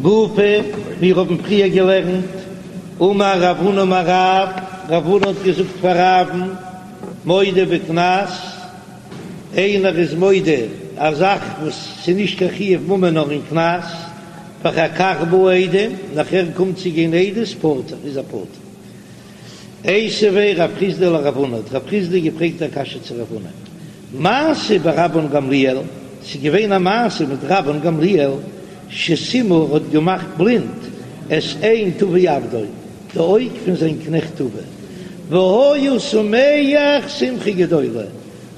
גופא, מיר האבן פריער געלערנט, אמר רב הונא אמר רב, רב הונא האט געזאגט פאר רב'ן, מודה בקנס, איינער איז מודה א זאך וואס ס'איז נישט קיין חיוב ממון נאר אין קנס, ואחר כך באו עדים, נאכער קומט צו גיין עדות, פטור, איז ער פטור. איתיביה רב חסדא לרב הונא, האט רב חסדא געפרעגט א קשיא צו רב הונא, מעשה ברבן גמליאל, ס'איז געווען א מעשה מיט רבן גמליאל, שסימא האט געמאכט בלינד את עין טבי עבדו, די אויג פון זיין קנעכט טבי, והיה שמח שמחה גדולה,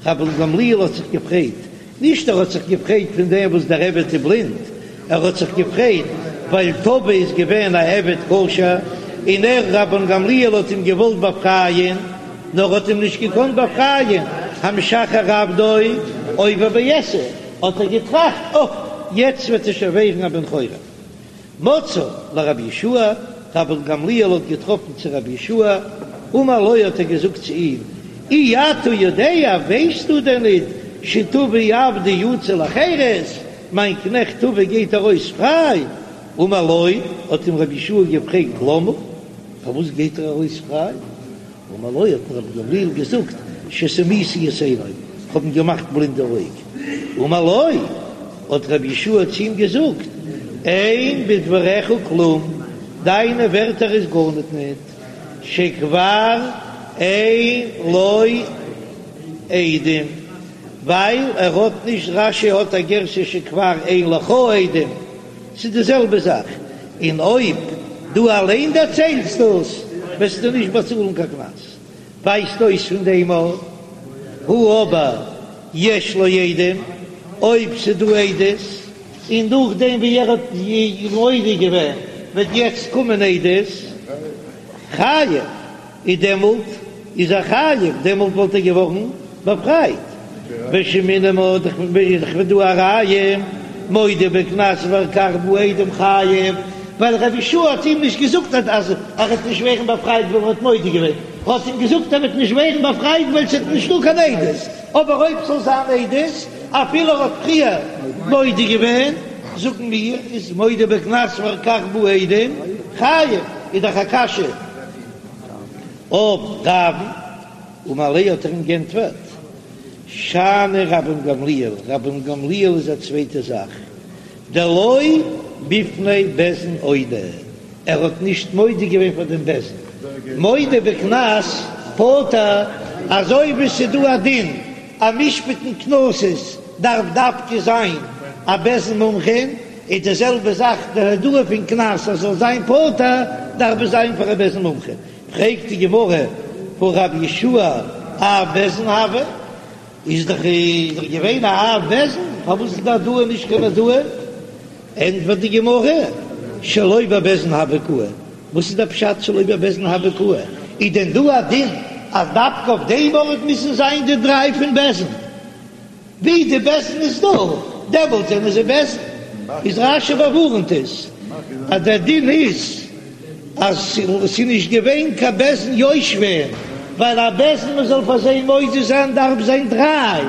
רבן גמליאל האט זיך געפרייט, נישט ער האט זיך געפרייט פון דעם וואס דער עבד איז בלינד, ער האט זיך געפרייט ווייל טבי איז געווען א עבד כשר, און ער רבן גמליאל האט אים געוואלט באפרייען, נאר האט אים נישט געקאנט באפרייען, המשחרר עבדו עובר בעשה, האט ער געטראכט, אוי, יעצט וועט ער שוין ווערן א בן חורין. מצאו לרבי יהושע, רבן גמליאל האט געטראפן צו רבי יהושע, אמר לו האט ער געזאגט צו אים, אי אתה יודע, ווייסטו דען ניט, שטבי עבדי יצא לחירות, מיין קנעכט טבי גייט ארויס פריי? אמר לו, האט אים רבי יהושע געפרעגט, למה, פארוואס גייט ער ארויס פריי? אמר לו האט רבן גמליאל געזאגט שסימיתי את עיניו, כ'האב אים געמאכט בלינד די אויג. אמר לו, האט רבי יהושע צו אים געזאגט, אין בדבריך כלום, דיינע ווערטער איז גארניט ניט, שכבר אין לו עדים, ווייל ער האט נישט, רש"י האט א גירסא שכבר אין לך עדים, ס'איז די זעלבע זאך, און אויב דו אליין דערציילסט דאס וועסטו נישט באצאלן קיין קנס. ווייזט אויס פון דעם הא אבער יש לו עדים, אויב ס'איז דא עדות, און נאכדעם ווי ער האט מודה געווען וועט יעצט קומען עדות, חייב. איז דעמאלט איז ער חייב, דעמאלט וואלט ער געווארן באפרייט. ושמעינן מינה איז דאך דא א ראיה, מודה בקנס ואחר כך באו עדים חייב, ווייל רבי יהושע האט אים נישט געזאגט אז ער וועט נישט ווערן באפרייט ווייל ער האט מודה געווען, ער האט אים געזאגט ער וועט נישט ווערן באפרייט ווייל ס'איז נישטא קיין עדות, אבער אויב ס'זאל זיין עדות אפילו ער האט פריער מודה געווען, זאגן מיר איז מודה בקנס ואחר כך באו עדים חייב, איז דאך א קשיא. אויף רב'ן, אמר ליה האט ער אים גענטפערט, שאני רבן גמליאל, רבן גמליאל איז א צווייטע זאך, דלא בפני בית דין אודי, ער האט נישט מודה געווען פאר דעם בית דין, מודה בקנס פטור, אזוי ווי ס'איז דא א דין אז משפט'ן קנסות דארף דווקא זיין א בית דין מומחים, איז די זעלבע זאך די הודאה פון קנס אז זאל זיין פטור דארף עס זיין פאר א בית דין מומחה, פרעגט די גמרא והא רבי יהושע אב בית דין הוה, איז דאך איז דאך געווען א אב בית דין, פארוואס איז די הודאה נישט קיין הודאה? ענטפערט די גמרא שלא בבית דין הוה קאי, וואס איז דער פשט שלא בבית דין הוה קאי? איז דען דא א דין אז דווקא אויף דעם ארט מוזן זיין די דריי פון בית דין? ווי די בית דין איז דא, דעמאלט זענען זיי בית דין. איז רש"י באווארנט עס אז דער דין איז אז ס'איז נישט געווען קיין בית דין יושבים, ווייל א בית דין מ'זאל פאר זיי מודה זיין דארף זיין דריי,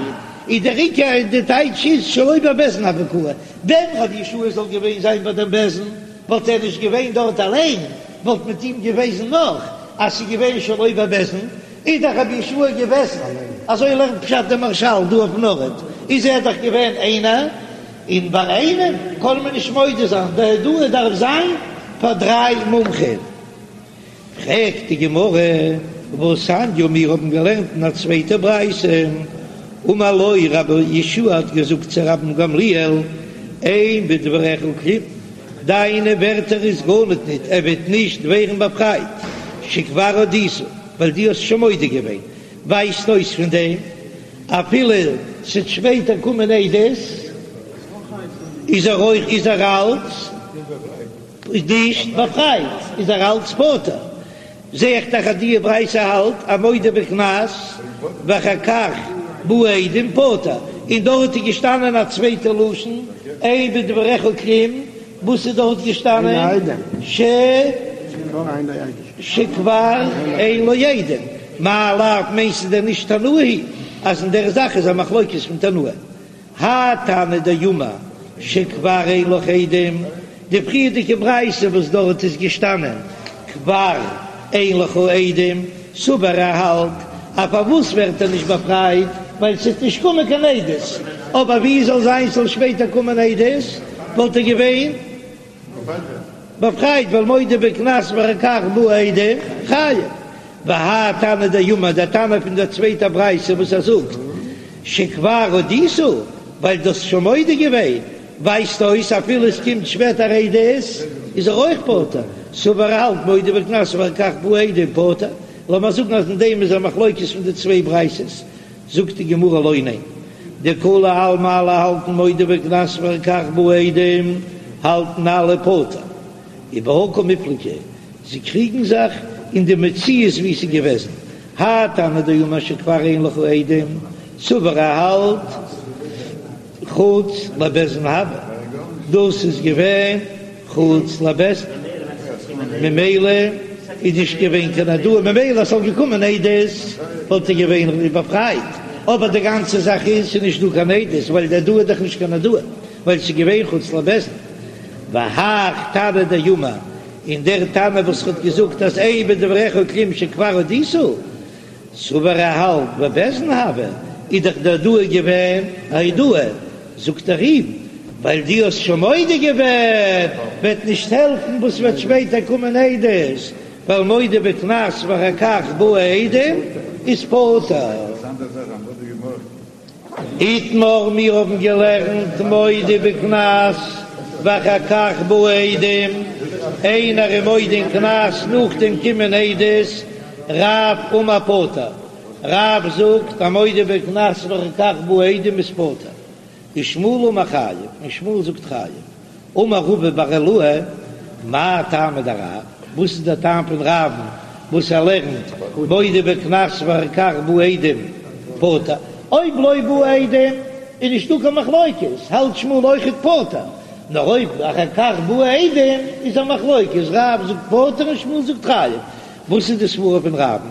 איז דער עיקר און די טייטש איז שלא בבית דין הוה קאי. ווען רבי יהושע זאל געווען זיין ביי דעם בית דין וואלט ער נישט געווען דארט אליין, וואלט מיט אים געוועזן נאך אז ס'איז געווען שלא בבית דין, איז דאך רבי יהושע געוועזן, אזוי לערנט פשט דער מהרש"ל דא אויפן ארט, איז ער דאך געווען איינער, און ביי איינעם קען מען נישט מודה זיין, די הודאה דארף זיין פאר דריי מומחים. פרעגט די גמרא, והתניא, מיר האבן געלערנט אין א צווייטע ברייתא, אמר לו רבי יהושע האט געזאגט צו רבן גמליאל, אין בדבריך כלום, דיינע ווערטער איז גארניט ניט, ער וועט נישט ווערן באפרייט, שכבר הודית. ווייל דו האסט שוין מודה געווען, ווייזט אויס פון דעם אפילו ס'וועט שפעטער קומען עדות איז ער אויך איז ער אלץ נישט באפרייט, איז ער אלץ פטור. זע איך דאך אז די ברייתא האלט אז מודה בקנס ואחר כך באו עדים פטור, און דארט איז געשטאנען א צווייטע לשון אין בדבריך כלום, וואס איז דארט געשטאנען? ש. שכבר אין לו עדים, מאי לאו מיינסטו דען נישט תנאי היא אז אין דער זאך איז א מחלוקת פון תנאים? האי תנא דאמר שכבר אין לך עדים, די פריערדיגע ברייתא וואס דארט איז געשטאנען כבר אין לך עדים, סבר ער האלט אז פארוואס ווערט ער נישט באפרייט ווייל ס'וועט נישט קומען קיין עדות, אבער ווי זאל זיין ס'זאל שפעטער קומען עדות וואלט ער געווען באפרייט ווייל מודה בקנס ואחר כך באו עדים חייב. והאי תנא דאמר דער תנא פון דער צווייטער ברייתא וואס ער זאגט שכבר הודית ווייל דו האסט שוין מודה געווען ווייזט אויס אפילו עס קומט שפעטער עדות איז ער אויך פטור, סבר ער האלט מודה בקנס ואחר כך באו עדים פטור, לאמיר זאגן אז אין דעם איז א מחלוקת פון די צוויי ברייתות, זאגט די גמרא לא ניין, דכולי עלמא אלע האלטן מודה בקנס ואחר כך באו עדים האלטן אלע פטור, ובהא קמיפלגי, זיי קריגן זיך אין די מציאות ווי עס איז געוועזן, האי תנא דאמר שכבר אין לך עדים, סבר ער האלט חוץ לבית דין הוה, דאס איז געווען חוץ לבית דין, ממילא איז נישט געווען קיין הודאה, ממילא אז ס'וואלט געקומען עדות וואלט ער געווען באפרייט, אבער די גאנצע זאך איז ס'איז נישט דא קיין עדות, ווייל די הודאה איז דאך נישט קיין הודאה, ווייל ס'איז געווען חוץ לבית דין. והאך תנא דאמר, און דער תנא וואס האט געזאגט אז אין בדבריך כלום שכבר הודית, סבר ער האלט בבית דין הוה, איז דאך די הודאה געווען א הודאה, זאגט ער אים, ווייל דו האסט שוין מודה געווען, וועט נישט העלפן וואס וועט שפעטער קומען עדות, ווייל מודה בקנס ואחר כך באו עדים איז פטור. איתמר, מיר האבן געלערנט מודה בקנס ואחר כך באו עדים, איינער איז מודה אין קנס נאכדעם קומען עדות, רב אמר פטור, רב זאגט א מודה בקנס ואחר כך באו עדים איז פטור, ושמואל אמר חייב, און שמואל זאגט חייב. אמר רבא בר עילאי, מאי טעמא דרב, וואס איז דער טעם פון רב'ן וואס ער לערנט מודה בקנס ואחר כך באו עדים פטור, אויב לא באו עדים איז נישטא קיין מחלוקת, האלט שמואל אויכעט פטור, נאר אויב אחר כך באו עדים איז א מחלוקת, רב זאגט פטור און שמואל זאגט חייב, וואס איז די סברא פון רב'ן?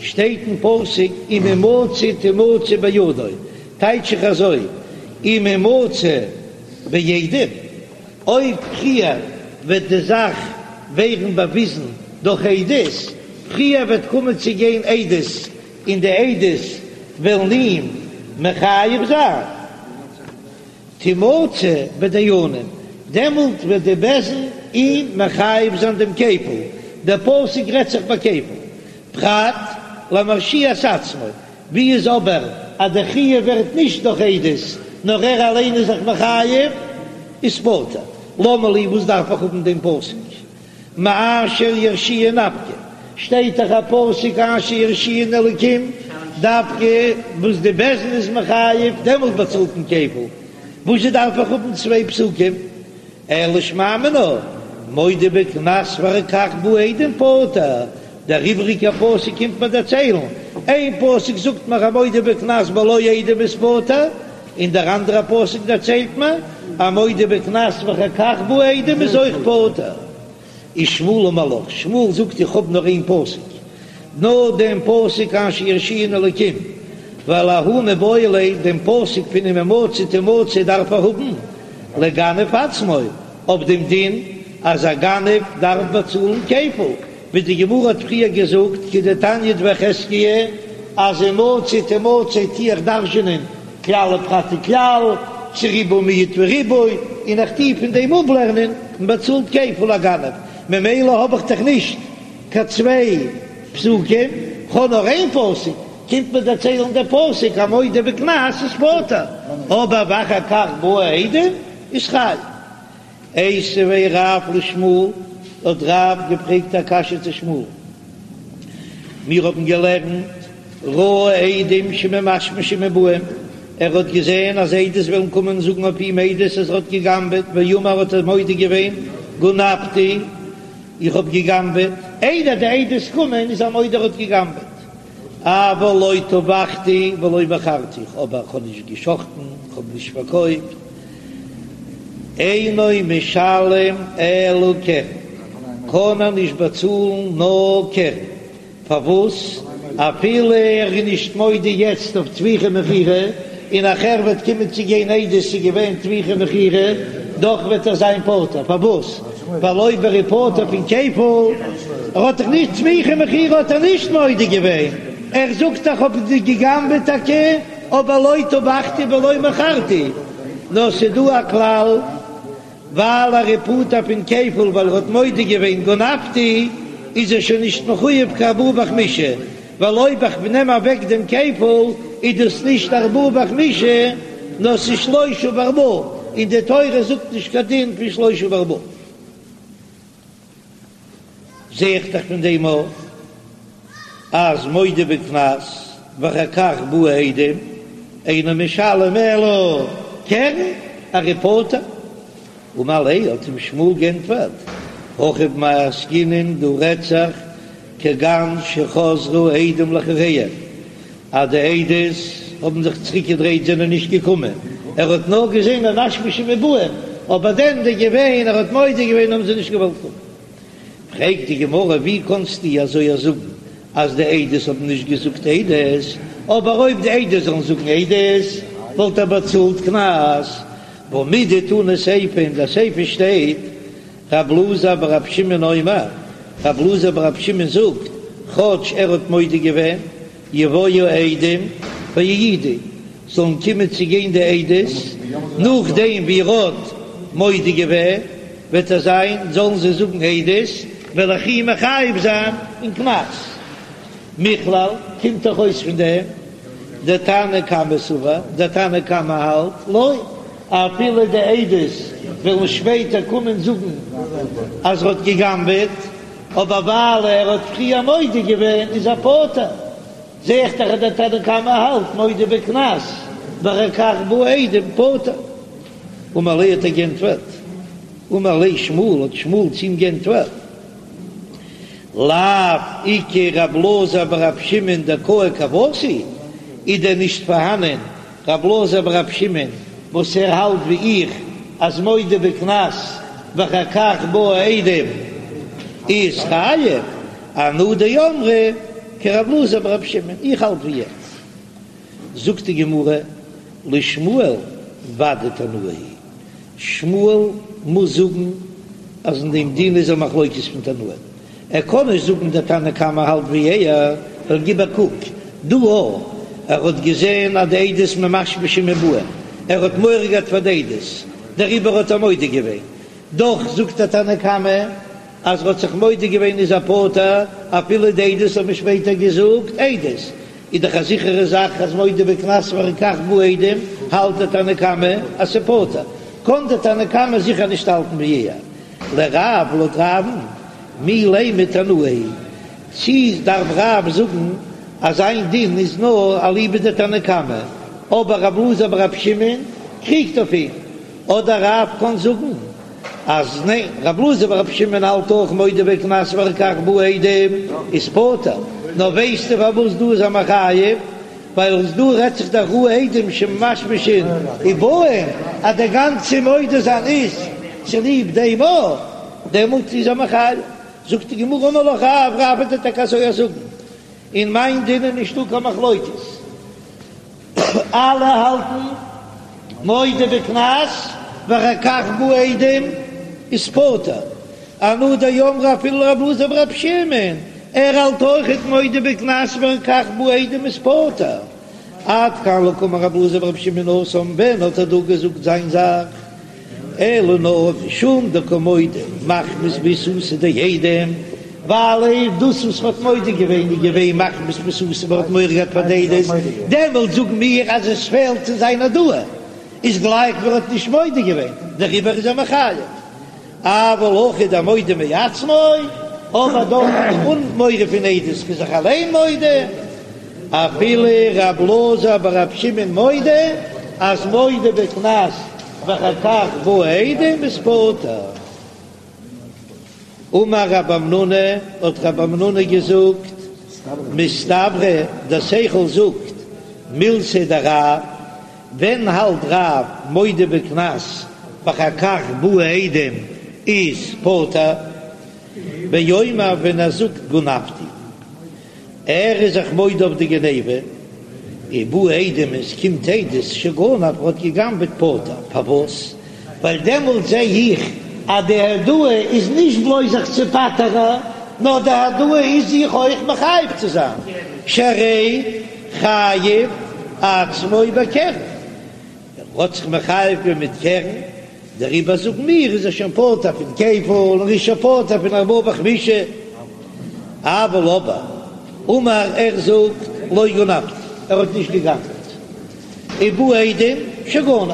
שטייט אין פסוק אם המצא תמצא בידו, טייטש איך אזוי אם המצא בעדים, אויב פריער וועט די זאך ווערן באוויזן דורך עדות, פריער וועט קומען צו גיין עדות און די עדות וועלן אים מחייב זיין, תמצא בדיינים, דעמאלט וועט די בית דין אים מחייב זיין דעם כפל, דער פסוק רעדט זיך ביי כפל, פרט למרשיע את עצמו, ווי איז אבער אז די חיוב ווערט נישט דורך עדות נאר ער אליין איז זיך מחייב, איז פטור. למה לי וואס דארף איך האבן דעם פסוק מאשר ירשיען נפקא, שטייט דאך א פסוק אשר ירשיען אלקים, דווקא וואס די בית דין איז מחייב דעמאלט באצאלט מען כפל, וואזשע דארף איך האבן צוויי פסוקים? אלא שמע מינה, מודה בקנס ואחר כך באו עדים פטור, דער איבריגער פסוק קומט מיר דערציילן, איין פסוק זאגט מיר א מודה בקנס בלא עדים איז פטור, און דער אנדערער פסוק דערציילט מיר א מודה בקנס ואחר כך באו עדים איז אויך פטור. ושמואל אמר לך, שמואל זאגט איך האב נאר איין פסוק, נאר דעם פסוק אשר ירשיען אלקים, ווייל ההוא מיבעי ליה, דעם פסוק פון אם המצא תמצא דארף ער האבן לגנב עצמו, אויף דעם דין אז א גנב דארף באצאלן כפל, ווי די גמרא האט פריער געזאגט כדתניא דבי חזקיה, אז המצא תמצא טו איך דרש'ענען כלל ופרט וכלל, צו ריבוי מיעוט וריבוי, און איך טו פון דעם אפלערנען מען באצאלט כפל א גנב, ממילא האב איך דאך נישט קיין צוויי פסוקים, כ'האב נאר איין פסוק, קומט מיר דערציילן דער פסוק א מודה בקנס איז פטור, אבער ואחר כך באו עדים איז חייב. איתיביה רב לשמואל, האט רב געפרעגט א קשיא צו שמואל, מיר האבן געלערנט ראה עדים שממשמשים ובאים, ער האט געזען אז עדות וועלן קומען זאגן אויף אים עדות אז ער האט גע'גנב'עט, ואמר האט ער מודה געווען גנבתי, איך האב גע'גנב'עט, איידער די עדות קומען איז ער מודה ער האט גע'גנב'עט. אבל לא טבחתי ולא מכרתי, אבער איך האב נישט געשחטן, איך האב נישט פארקויפט, אינו משלם אלא קרן, קען ער נישט באצאלן נאר קרן, פארוואס? אפילו ער איז נישט מודה יעצט אויף טביחה מכירה, און נאכער וועט קומען צו גיין עדות ס'איז געווען טביחה מכירה. דאך וועט ער זיין פטור, פארוואס? ווייל אויב ער איז פטור פון כפל, ער האט דאך נישט סמיכה מכירה האט ער נישט מודה געווען, ער זאגט איך האב גע'גנב'עט טאקע, אבער לא טבחתי ולא מכרתי, נאר ס'דא א כלל. ווייל ער איז פטור פון כפל ווייל ער האט מודה געווען גנבתי איז ער שוין נישט מחויב קיין ארבעה וחמישה, ווייל אויב איך נעם אוועק דעם כפל איז דאס נישט ארבעה וחמישה נאר ס'איז שלושה וארבעה, און די תורה זאגט נישט קיין דין פון שלושה וארבעה. זע איך דאך פון דעם אויך אז מודה בקנס ואחר כך באו עדים אינו משלם אלא קרן ער איז פטור. אמר ליה האט אים שמואל גענטפערט, הכא במאי עסקינן דא רעדט זיך כגון שחזרו עדים לאחוריהם אז די עדות האבן זיך צוריק געדרייט זענען נישט געקומען, ער האט נאר געזען ממשמשין ובאין, אבער דען די געווען ער האט מודה געווען האבן זיי נישט געוואלט קומען. פרעגט די גמרא ווי קאנסטו אזוי זאגן אז די עדות האבן נישט געזאגט עדות, אבער אויב די עדות זאלן זאגן עדות וואלט ער באצאלט קנס, והא מדתנא סיפא אין די סיפא שטייט רב אלעזר ברב שמעון אומר, רב אלעזר ברב שמעון זאגט כאטש ער האט מודה געווען יבואו עדים ויעידו, זאלן קומען צו גיין די עדות, נאכדעם ווי ער האט מודה געווען, וועט ער זיין, זאלן זיי זאגן עדות, וועל איך אים מחייב זיין אין קנס. מכלל, קומט דאך אויס פון דעם, דתנא קמא סבר, דער תנא קמא האלט, לא, אפילו די עדות וועלן שפעטער קומען זאגן אז ער האט גע'גנב'עט, אבער ווייל ער האט פריער מודה געווען איז ער פטור, זע איך דאך אז דער תנא קמא האלט מודה בקנס ואחר כך באו עדים פטור. אמר ליה האט ער גענטפערט, אמר ליה שמואל האט שמואל צו אים גענטפערט, לאו איכא רב אלעזר ברב שמעון דקאי כוותי, איז דען נישט פארהאנען רב אלעזר ברב שמעון וואס ער האלט ווי איך אז מודה בקנס ואחר כך באו עדים איז חייב, אנא דאמרי כרב אלעזר ברב שמעון, איך האלט ווי ער. זאגט די גמרא לשמואל ודאי תנאי היא שמואל מוז זאגן אז אין דעם דין איז א מחלוקת פון תנאים, ער קען נישט זאגן דער תנא קמא האלט ווי ער, ווייל גיב א קוק דא א, ער האט געזען אז די עדות ממשמשין ובאין, ער האט מורא געהאט פאר די עדות, דעריבער האט ער מודה געווען, דאך זאגט דער תנא קמא אז ער האט זיך מודה געווען איז ער פטור, אפילו די עדות האבן שפעטער געזאגט עדות, איז דאך א זיכערע זאך אז מודה בקנס ואחר כך באו עדים, האלט דער תנא קמא אז ס'פטור, קען דער תנא קמא זיכער נישט האלטן ווי ער. לרב לויט רב'ן מי לימא תנאי היא, צי דארף רב זאגן אז זיין דין איז נאר אליבא דתנא קמא, אבער רב אלעזר ברב שמעון קריגט אויף אים, אדער רב קען זאגן אז ניין, רב אלעזר ברב שמעון האלט אויך מודה בקנס ואחר כך באו עדים איז פטור, נאר ווייסטו פארוואס דא איז ער מחייב? ווייל דא רעדט זיך דאך ראו עדים שממשמשין ובאין אז דער גאנצע מודה זיין איז צוליב דעם א, דעמאלט איז ער מחייב. זאגט די גמרא אמר לך רב, רב וועט דיר טאקע אזוי זאגן, אין מיין דין איז נישטא קיין מחלוקת, אלע האלטן מודה בקנס ואחר כך באו עדים איז פטור, אנא דאמרי אפילו רב אלעזר ברב שמעון, ער האלט אויכעט מודה בקנס ואחר כך באו עדים איז פטור. עד כאן לא קאמר רב אלעזר ברב שמעון התם, ווען האט ער דא געזאגט זיין זאך? אלא נאר משום דקא מודה מחמת ביעתותא דעדים, ווייל אויב דאס וואס מ'האט מודה געווען איז געווען מחמת ביעתותא מ'האט מורא געהאט פאר די עדות, דעמאלט זאגן מיר אז עס פעלט צו זיין הודאה, איז גלייך ווי ער האט נישט מודה געווען, דעריבער איז ער מחייב. אבל הכא דמודה מעצמו, אבער דארט אן מורא פון עדות איז זיך אליין מודה, אפילו רב אלעזר ברב שמעון מודה אז מודה בקנס ואחר כך באו עדים איז פטור. אמר רב המנונא, האט רב המנונא געזאגט, מסתברא דער שכל זאגט מילתיה דרב, ווען האלט רב מודה בקנס ואחר כך באו עדים איז פטור? באומר ווען ער זאגט גנבתי ער איז זיך מודה אויף די גניבה ובאו עדים און ס'קומט עדות שגנב ער האט געגנבעט פטור פארוואס? ווייל דעמאלט זע איך אז די הודאה איז נישט בלויז זיך צו פטר'ן, נאר די הודאה איז זיך אויך מחייב צו זיין, שהרי חייב עצמו בקרן, ער האט זיך מחייב געווען מיט קרן, דעריבער זאגן מיר איז ער שוין פטור פון כפל און ער איז שוין פטור פון ארבעה וחמישה, אבל אבער אמר ער זאגט לא גנבתי, ער האט נישט געגנב'ט, ובאו עדים שגנב,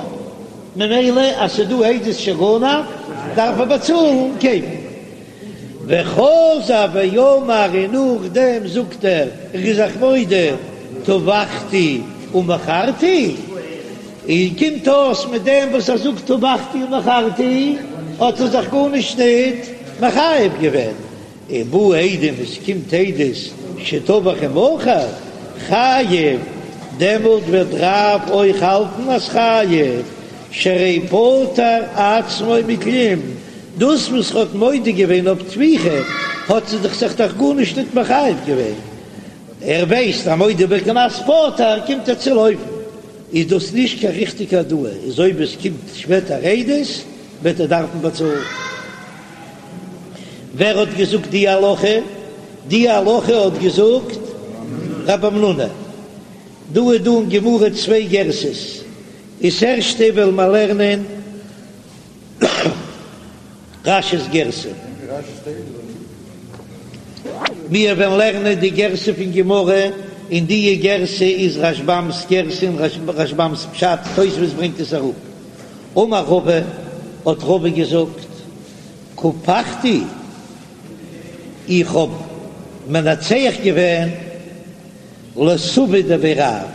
ממילא אז ס'דא עדות שגנב דארף ער באצאלן כפל. וחזר ואמר און נאכדעם זאגט ער איך בין זיך מודה טבחתי ומכרתי, און קומט אויס מיט דעם וואס ער זאגט טבחתי ומכרתי האט ער זיך גארנישט ניט מחייב געווען, ובאו עדים עס קומט עדות שטבח ומכר חייב, דעמאלט וועט רב אויך האלטן אז חייב, שהרי פטר עצמו מכלום, דאס וואס ער האט מודה געווען אויף טביחה האט ער זיך זיך דאך גארנישט ניט מחייב געווען, ער ווייסט אז מודה בקנס פטור קומט ער צו לויפן, איז דאס נישט קיין ריכטיגע הודאה, איז אויב עס קומט שפעטער עדות וועט ער דארפן באצאלן. ווער האט געזאגט די הלכה? די הלכה האט געזאגט רב המנונא. דא איז דא אין גמרא צוויי גירסאות, איז ערשטע וועלן מיר לערנען רש"י'ס גירסא. מיר וועלן לערנען די גירסא פון גמרא, און די גירסא איז רשב"ם'ס גירסא און רשב"ם'ס פשט, תוספות ברענגט עס אראפ. אמר רבא, האט רבא געזאגט, קפחתי, איך האב מנצח געווען לסבא דבי רב,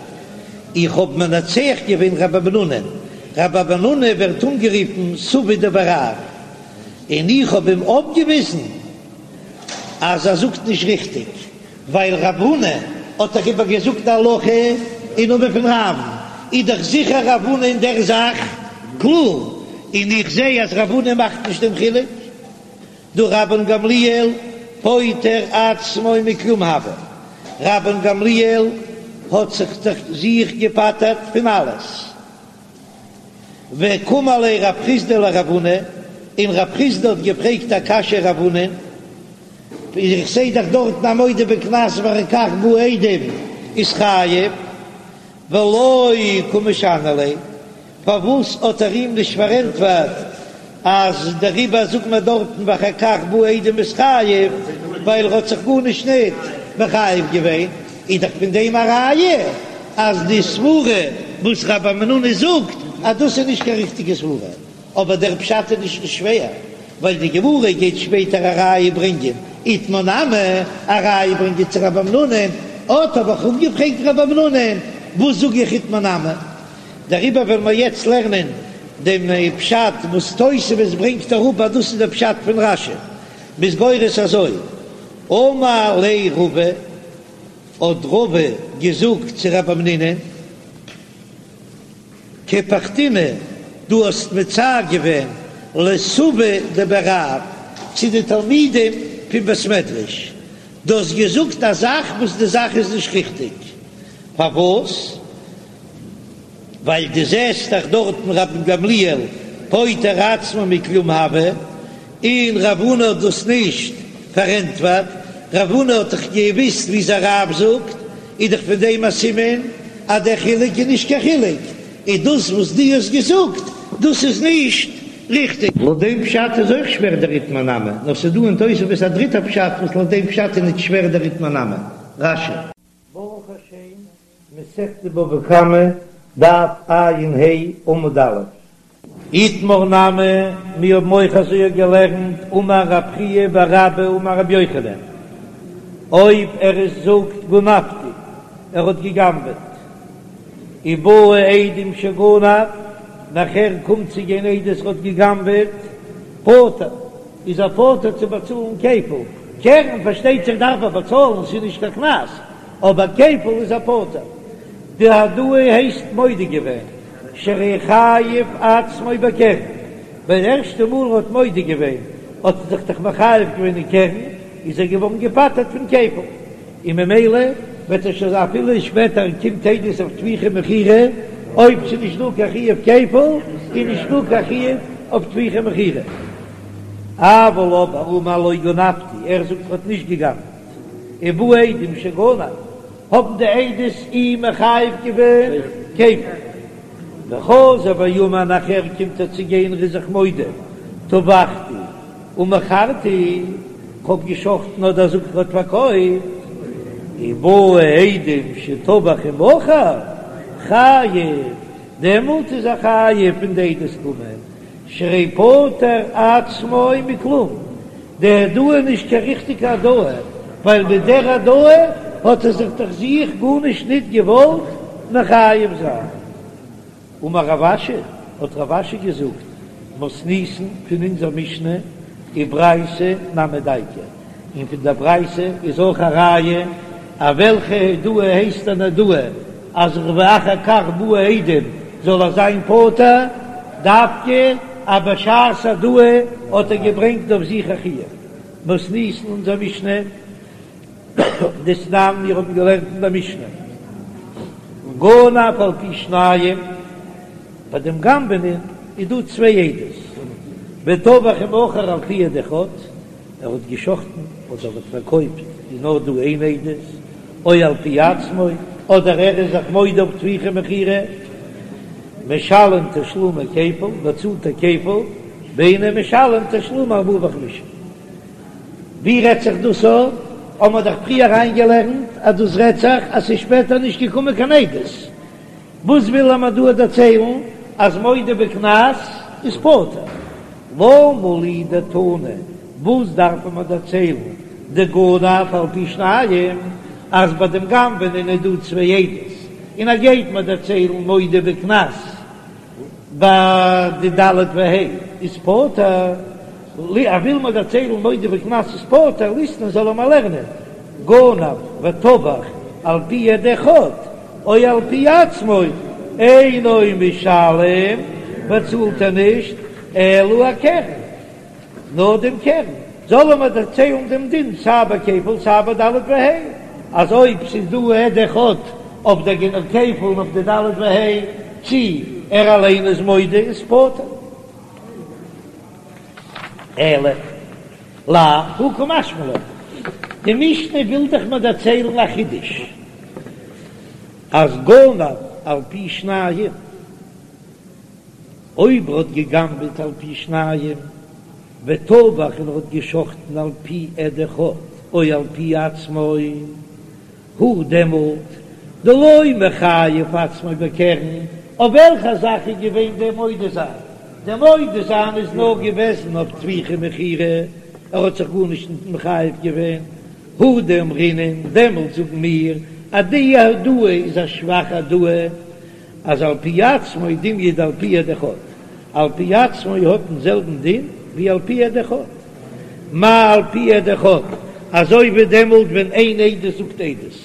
איך האב מנצח געווען רב המנונא'ן, רב המנונא ווערט אנגערופן סבא דבי רב, און איך האב אים אויפגעוויזן אז ער זאגט נישט ריכטיג, ווייל רב הונא האט דאך איבער געזאגט די הלכה אין נאמען פון רב'ן, איז דאך זיכער רב הונא אין דער זאך קלאר, און איך זע אז רב הונא מאכט נישט דעם חילוק. דהא רבן גמליאל פוטר עצמו מכלום הוה, רבן גמליאל האט זיך דאך זיך געפטר'ט פון אלעס, וקאמר ליה רב חסדא לרב הונא, און רב חסדא האט געפרעגט א קשיא רב הונא, איך זעה דאך דארטן א מודה בקנס ואחר כך באו עדים איז חייב, ולא קא משני ליה, פארוואס האט ער אים נישט פארענטפערט אז דעריבער זאגט מען דארטן ואחר כך באו עדים איז חייב ווייל ער האט זיך גארנישט ניט מחייב געווען, איז דאך פון דעם א ראיה אז די סברה וואס רב המנונא זאגט אז דאס איז נישט קיין ריכטיגע סברה, אבער דער פשט איז נישט שווער, ווייל די גמרא גייט שפעטער א ראיה ברענגען, איתמר נמי, א ראיה ברענגען צו רב המנונא, אט האב איך אפגעפרעגט רב המנונא, וואס זאג איך איתמר נמי? דעריבער וועלן מיר יעצט לערנען דעם פשט וואס תוספות ברענגט אראפ אז דאס איז דער פשט פון רש"י, מ'איז גורס אזוי, אמר ליה רבא, האט רבא געזאגט צו רב המנונא, קפחתינהו, דו האסט מצער געווען לסבי דבי רב, צו די תלמידים פון בית מדרש, דו האסט געזאגט א זאך וואס די זאך איז נישט ריכטיג, פארוואס? ווייל דו זעסט דאך דארטן רבן גמליאל פוטר עצמו מכלום הוה, און רב הונא האט דאס נישט פארענטפערט, רב הונא האט דאך געוויסט וויאזוי רב זאגט, איז דאך פון דעם א סימן אז דער חילוק איז נישט קיין חילוק, איז דאס וואס דו האסט געזאגט דאס איז נישט ריכטיג. לויט דעם פשט איז אויך שווער דער איתמר נמי, נאר ס'איז דא אין תוספות א דריטער פשט וואס לויט דעם פשט איז נישט שווער דער איתמר נמי. רש"י. ברוך השם, מסכת בבא קמא, דף ע"ה, עמוד א'. איתמר נמי, מיר האבן אויך אזוי געלערנט, אמר רב חייא בר אבא אמר רבי יוחנן, אויב ער איז זאגט גנבתי, ער האט געגנבעט, ובאו עדים שגנב, נאכער קומט צו גיין עדות ער האט געגנבעט, פטור, איז ער פטור צו באצאלן כפל, קרן פארשטייט זיך דארף ער באצאלן, ס'איז נישט קיין קנס, אבער כפל איז ער פטור. די הודאה הייסט מודה געווען, שהרי חייב עצמו בקרן, ווען ערשטע מאל ער האט מודה געווען האט ער זיך דאך מחייב געווען אין קרן, איז ער געווארן געפטר'ט פון כפל, און ממילא וועט ער שוין אפילו שפעטער קומט עדות אויף טביחה ומכירה, אויב ס'איז נישט דא קיין חיוב כפל איז נישט דא קיין חיוב. אויף טביחה ומכירה. אבל אבער אמר לא גנבתי, ער זאגט ער האט נישט גע'גנב'ט, ובאו עדים שגנב, האבן די עדות אים מחייב געווען כפל. וחזר ואמר נאכער קומט ער צו גיין ער איז זיך מודה, טבחתי ומכרתי, כ'האב געשחטן אדער זאגט ער האט פארקויפט, ובאו עדים שטבח ומכר, חייב, דעמאלט איז ער חייב ווען די עדות קומען, שהרי פטר עצמו מכלום, די הודאה איז נישט קיין ריכטיגע הודאה, ווייל מיט דער הודאה האט ער זיך דאך זיך גארנישט ניט געוואלט מחייב זיין. אמר רב אשי, האט רב אשי געזאגט, מתניתין פון אונזער משנה וברייתא נמי דייקא, און פון דער ברייתא איז אויך א ראיה אז וועלכע הודאה הייסט אן הודאה אז ואחר כך באו עדים זאל ער זיין פטור, דווקא אז בשעת הודאה האט ער געברענגט אויף זיך א חיוב. מתניתין אונזער משנה דתנן, מיר האבן געלערנט אין דער משנה, גנב על פי שניים, ביי דעם גנב'ענען איז דא צוויי עדות, וטבח ומכר על פי עד אחד, ער האט געשחטן אדער האט פארקויפט איז נאר דא איין עדות, או על פי עצמו, אדער ער איז זיך מודה אויף טביחה ומכירה, משלם תשלומי כפל, באצאלט ער כפל, ואינו משלם תשלומי ארבעה וחמישה. ווי רעדט זיך דאס א? האבן מיר דאך פריער אריינגעלערנט אז דאס רעדט זיך אז ס'איז שפעטער נישט געקומען קיין עדות. וואס וויל ער מיר דא דערציילן? אז מודה בקנס איז פטור. למה לי דתנא, וואס דארף ער מיר דערציילן דגנב על פי שניים, אז ביי דעם גנב'ענען איז דא צוויי עדות, און ער גייט מיר דערציילן מודה בקנס ביי די ד' וה' איז פטור, ער וויל מיר דערציילן מודה בקנס איז פטור, ליתני זאל ער מיר לערנען גנב וטבח על פי עד אחד או על פי עצמו אינו משלם, באצאלט ער נישט אלא הקרן. נאר דעם קרן, זאל ער מיר דערציילן דעם דין סיי ביי כפל סיי ביי ד' וה', אז אויב ס'איז דא עד אחד אויף דער כפל און אויף די ד' וה', צי ער אליין איז מודה איז פטור. אלא לאו הא קא משמע לן, די משנה וויל דאך מיר דערציילן א חידוש, אז גנב על פי שניים, אויב ער האט גע'גנב'עט על פי שניים וטבח און ער האט גע'שחט'ן על פי עד אחד או על פי עצמו, הוא דעמאלט דלא מחייב עצמו בקרן, אויף וועלכע זאך איז געווען דער מודה זיין? דער מודה זיין איז נאר געוועזן אויף טביחה ומכירה, ער האט זיך גארנישט מחייב געווען, הוא דאמרינן, דעמאלט זאגן מיר אז די הודאה איז א שוואכע הודאה, אז על פי עצמו דומיא דעל פי עד אחד, על פי עצמו האט דעם זעלבן דין ווי על פי עד אחד, מה על פי עד אחד, אזוי ווי דעמאלט ווען איין עדות זאגט עדות,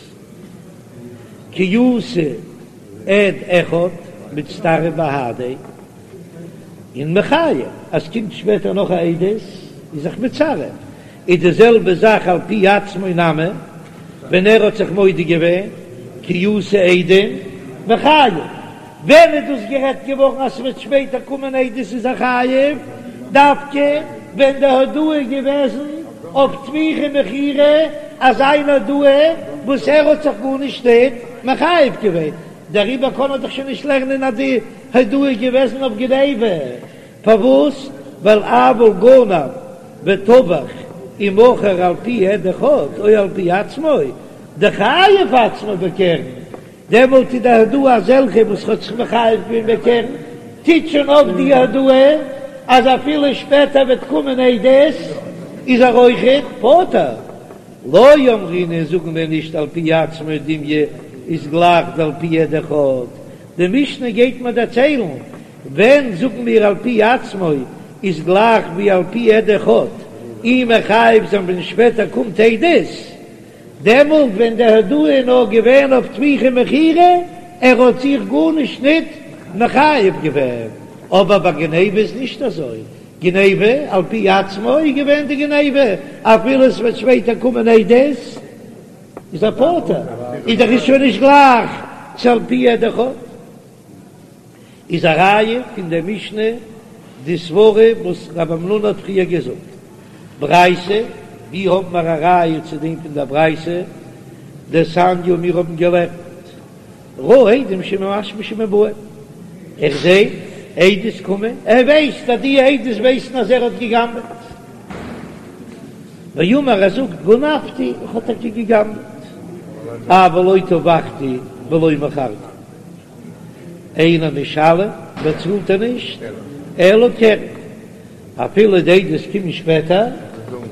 כי אתא עד אחד מצטרף בהדיה, און מחייב אז קומט שפעטער נאך א עדות איז זיך מצרף, איז די זעלבע זאך על פי עצמו נמי, ווען ער האט זיך מודה געווען כי אתו עדים מחייב, ווען איז דאס גערעדט געווארן אז ס'וועט שפעטער קומען עדות איז ער חייב, דווקא ווען די הודאה איז געוועזן אויף טביחה ומכירה, אזא איין הודאה וואס ער האט זיך גארנישט ניט מחייב געווען, דעריבער קען ער דאך שוין נישט לערנען אז די הודאה איז געוועזן אויף גניבה. פארוואס? ווייל אבל גנב וטבח ומכר על פי עד אחד או על פי עצמו, דחייב עצמו בקרן, דעמאלט איז די הודאה אזעלכע וואס האט זיך מחייב געווען בקרן, טוט שוין אויף די הודאה אז אפילו שפעטער וועט קומען עדות איז ער אויכעט פטור. לא אמרינן זאגן מיר נישט על פי עצמו דומיא איז גלייך דעל פי עד אחד, די משנה גייט מיר דערציילן ווען זאגן מיר על פי עצמו איז גלייך ווי על פי עד אחד, אים מחייב זיין ווען שפעטער קומט עדות, דעמאלט ווען די הודאה איז נאר געווען אויף טביחה ומכירה, ער האט זיך גארנישט ניט מחייב געווען, אבער ביי גניבה איז נישט אזוי, גניבה על פי עצמו איז געווען די גניבה, אפילו עס וועט שפעטער קומען עדות איז ער פטור, איז דאך עס שוין נישט גלייך צו על פי עד אחד. איז א ראיה פון דער משנה. די סברה וואס רב המנונא האט פריער געזאגט. ברייתא, ווי האבן מיר א ראיה צו דעם פון דער ברייתא? דתניא מיר האבן געלערנט ראה עדים שממשמשים ובאים, ער זעט עדות קומען, ער ווייסט אז די עדות ווייסן אז ער האט גע'גנב'עט, ואמר ער זאגט גנבתי, איך האב טאקע גע'גנב'עט, אבל לא טבחתי ולא מכרתי, אינו משלם, באצאלט ער נישט, אלא קרן. אפילו די עדות קומען שפעטער,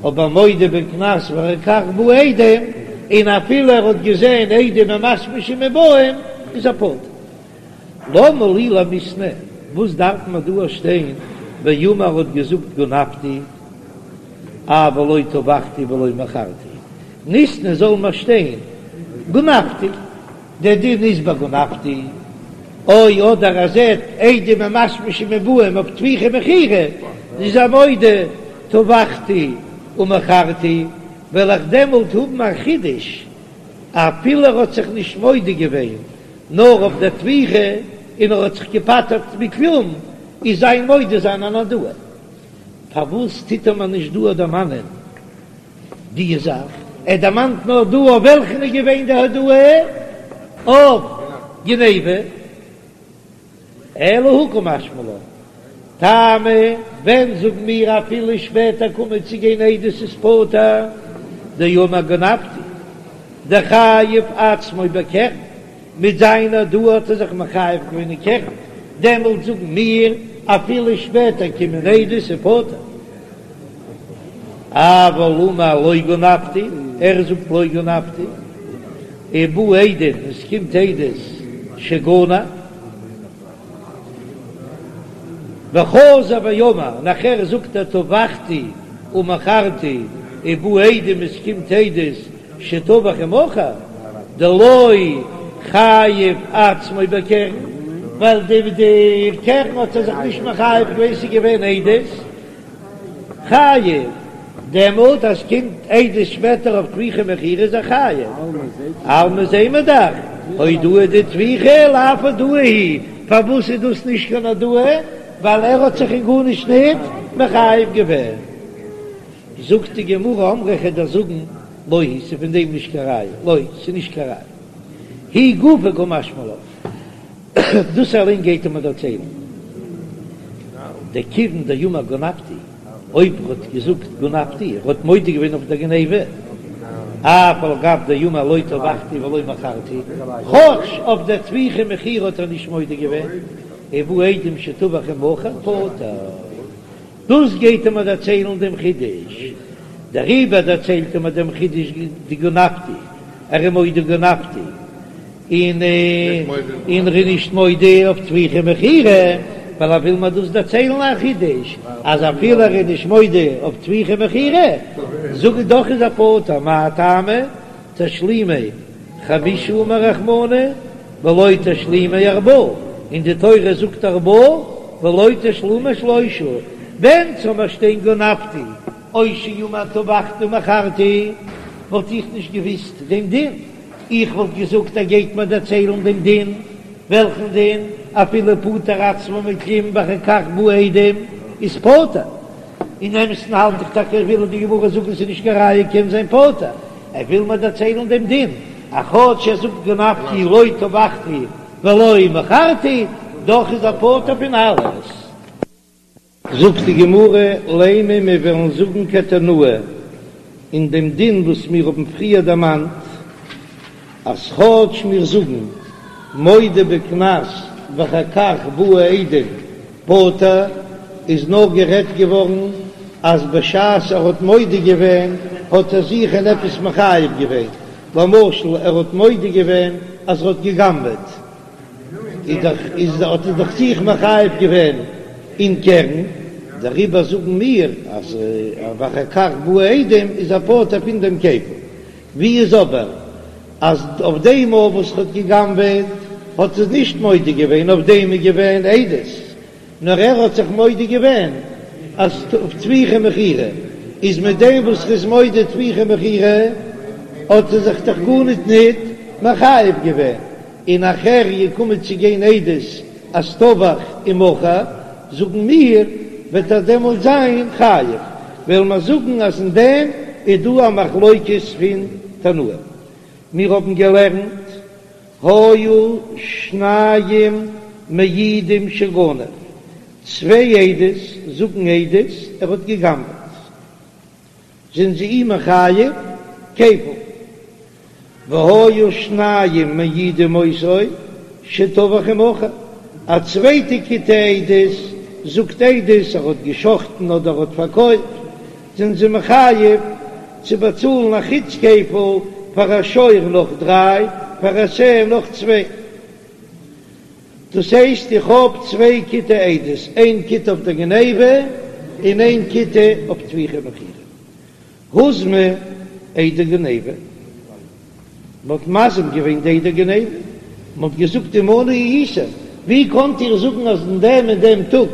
אבער מודה בקנס ואחר כך באו עדים, און אפילו ער האט געזען עדים ממשמשים ובאים, איז ער פטור. למה לי למיתנא, וואס דארף מען דא שטיין ואמר האט געזאגט גנבתי, אבל לא טבחתי ולא מכרתי, ניתני זאל מען שטיין גנבתי. דער דין איז ביי גנבתי, או אדער ער זעט עדים ממשמשים ובאים אויף טביחה ומכירה, איז ער מודה טבחתי ומכרתי, וועל איך דעמאלט האבן א חידוש, אפילו ער האט זיך נישט מודה געווען נאר אויף דער טביחה און ער האט זיך געפטר'ט מכלום, איז זיין מודה זיין אן הודאה. פארוואס טוט ער מיר נישט דא דערמאנען די זאך, ער דערמאנט נאר דא אויף וועלכן איז געווען די הודאה אויף גניבה, אלא הא קא משמע לן, טעמא, ווען זאגן מיר אפילו שפעטער קומען צו גיין עדות איז פטור, דאמר גנבתי, דחייב עצמו בקרן, מיט זיין הודאה האט ער זיך מחייב געווען אין קרן, דעמאלט זאגן מיר אפילו שפעטער קומען עדות איז פטור. אבל אמר לא גנבתי, ער זאגט לא גנבתי, ובאו עדים, עס קומט עדות שגנב, וחזר ואמר, נאכער זאגט ער טבחתי ומכרתי, ובאו עדים, עס קומט עדות שטבח ומכר, דלא חייב עצמו בקרן, ווייל די קרן האט ער זיך נישט מחייב געווען, ס'איז געווען עדות. חייב, דעמאלט אז ס'קומט עדות שפעטער אויף טביחה ומכירה איז ער חייב. אלמא זעהן מיר דאך, הודאה דטביחה לאו הודאה היא, פארוואס איז דאס נישט קיין הודאה? ווייל ער האט זיך אין גארנישט ניט מחייב געווען. זאגט די גמרא אמרי כ'וועל דיר זאגן לא היא, ס'איז פון דעם נישט קיין ראיה, לא, ס'איז נישט קיין ראיה. היא גופא קא משמע לן. דאס אליין גייט ער מיר דערציילן. דכיון דאמר גנבתי, אויב ער האט געזאגט גנבתי, ער האט מודה געווען אויף דער גניבה, אף על גב דאמר לא טבחתי ולא מכרתי, כאטש אויף דער טביחה ומכירה האט ער נישט מודה געווען, ובאו עדים שטבח ומכר פטור. דאס גייט ער מיר דערציילן דעם חידוש, דעריבער דערציילט ער מיר דעם חידוש דגנבתי, ער איז מודה גנבתי, און און ער איז נישט מודה אויף טביחה ומכירה, ווייל ער וויל מיר דאס דערציילן א חידוש, אז אפילו ער איז נישט מודה אויף טביחה ומכירה, זאג איך דאך איז ער פטור, מאי טעמא? תשלומי חמשה אמר רחמנא ולא תשלומי ארבעה, און די תורה זאגט ארבעה ולא תשלומי שלושה, ווען ס'זאל מיר שטיין גנבתי או שאמר טבחתי ומכרתי וואלט איך נישט געוויסט דעם דין, איך וואלט געזאגט ער גייט מיר דערציילן דעם דין, וועלכן דין? אפילו פטר עצמו מכלום ואחר כך באו עדים איז פטור, אין אמת'ן האלט איך טאקע וויל די גמרא זאגן ס'איז נישט קיין ראיה קען זיין פטור, ער וויל מיר דערציילן דעם דין, אז כאטש ער זאגט גנבתי לא טבחתי ולא מכרתי, דאך איז ער פטור פון אלעס. זאגט די גמרא, לימא מיר וועלן זאגן כתנאי אין דעם דין וואס מיר האבן פריער דערמאנט, אז כאטש מיר זאגן מודה בקנס ואחר כך באו עדים פטור, איז נאר גערעדט געווארן אז בשעת ער האט מודה געווען האט ער זיך אין עפעס מחייב געווען, למשל ער האט מודה געווען אז ער האט גע'גנב'עט, איז דאך איז האט ער דאך זיך מחייב געווען אין קרן, דעריבער זאגן מיר אז ואחר כך באו עדים איז ער פטור פון דעם כפל. ווי איז אבער אז אויף דעם מאל וואס ער האט גע'גנב'עט האט ער נישט מודה געווען, אויף דעם איז געווען עדות, נאר ער האט זיך מודה געווען אז אויף טביחה ומכירה, איז מיט דעם וואס ער איז מודה טביחה ומכירה האט ער זיך דאך גארניט ניט מחייב געווען, און נאכער געקומען צו גיין עדות אז טבח ומכר, זאגן מיר. וועט ער דעמאלט זיין חייב, וועלן מיר זאגן אז אין דעם איז דא א מחלוקת פון תנאים. מיר האבן געלערנט היו שניים מעידים שגנב, צוויי עדות זאגן עדות ער האט גע'גנב'עט. זענען זיי אים מחייב כפל. והיו שניים מעידים אותו שטבח ומכר, א צווייטע כיתה עדות זאגט עדות ער האט געשחטן אדער ער האט פארקויפט, זענען זיי מחייב צו באצאלן א חוץ כפל פאר א שור נאך דריי, פאר א שה נאך צוויי. דאס הייסט איך האב צוויי כיתי עדות, איין כיתה אויף דער גניבה און איין כיתה אויף טביחה ומכירה. הוזמו עדי גניבה, מען האט מזים געווען די עדי גניבה, מען האט געזאגט עמנו הייתם, ווי קאנט איר זאגן אז אין דעם און דעם טאג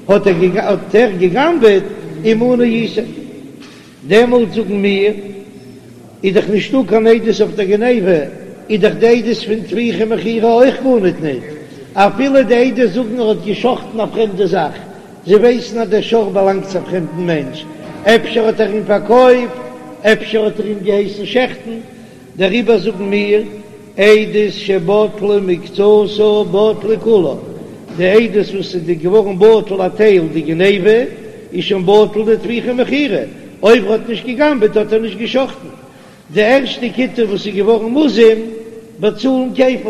האט ער גע'גנב'עט, עמנו הייתם. דעמאלט זאגן מיר, איז דאך נישטא קיין עדות אויף דער גניבה, איז דאך די עדות פון טביחה ומכירה אויך גארניט ניט, אפילו די עדות זאגן ער האט גע'שחט'ן א פרעמדע זאך, זיי ווייסן אז דער שור באלאנגט צו א פרעמדן מענטש, אפשר האט ער אים פארקויפט, אפשר האט ער אים געהייסן שעכטן, דעריבער זאגן מיר, עדות שבטלה מקצתה בטלה כולה, די עדות וואס איז געווארן בטל א טייל די גניבה, איז שוין בטל די טביחה ומכירה, אויב ער האט נישט גע'גנב'עט האט ער נישט גע'שחט'ן. די ערשטע כיתה וואס איז געווארן מוזם באצאלן כפל.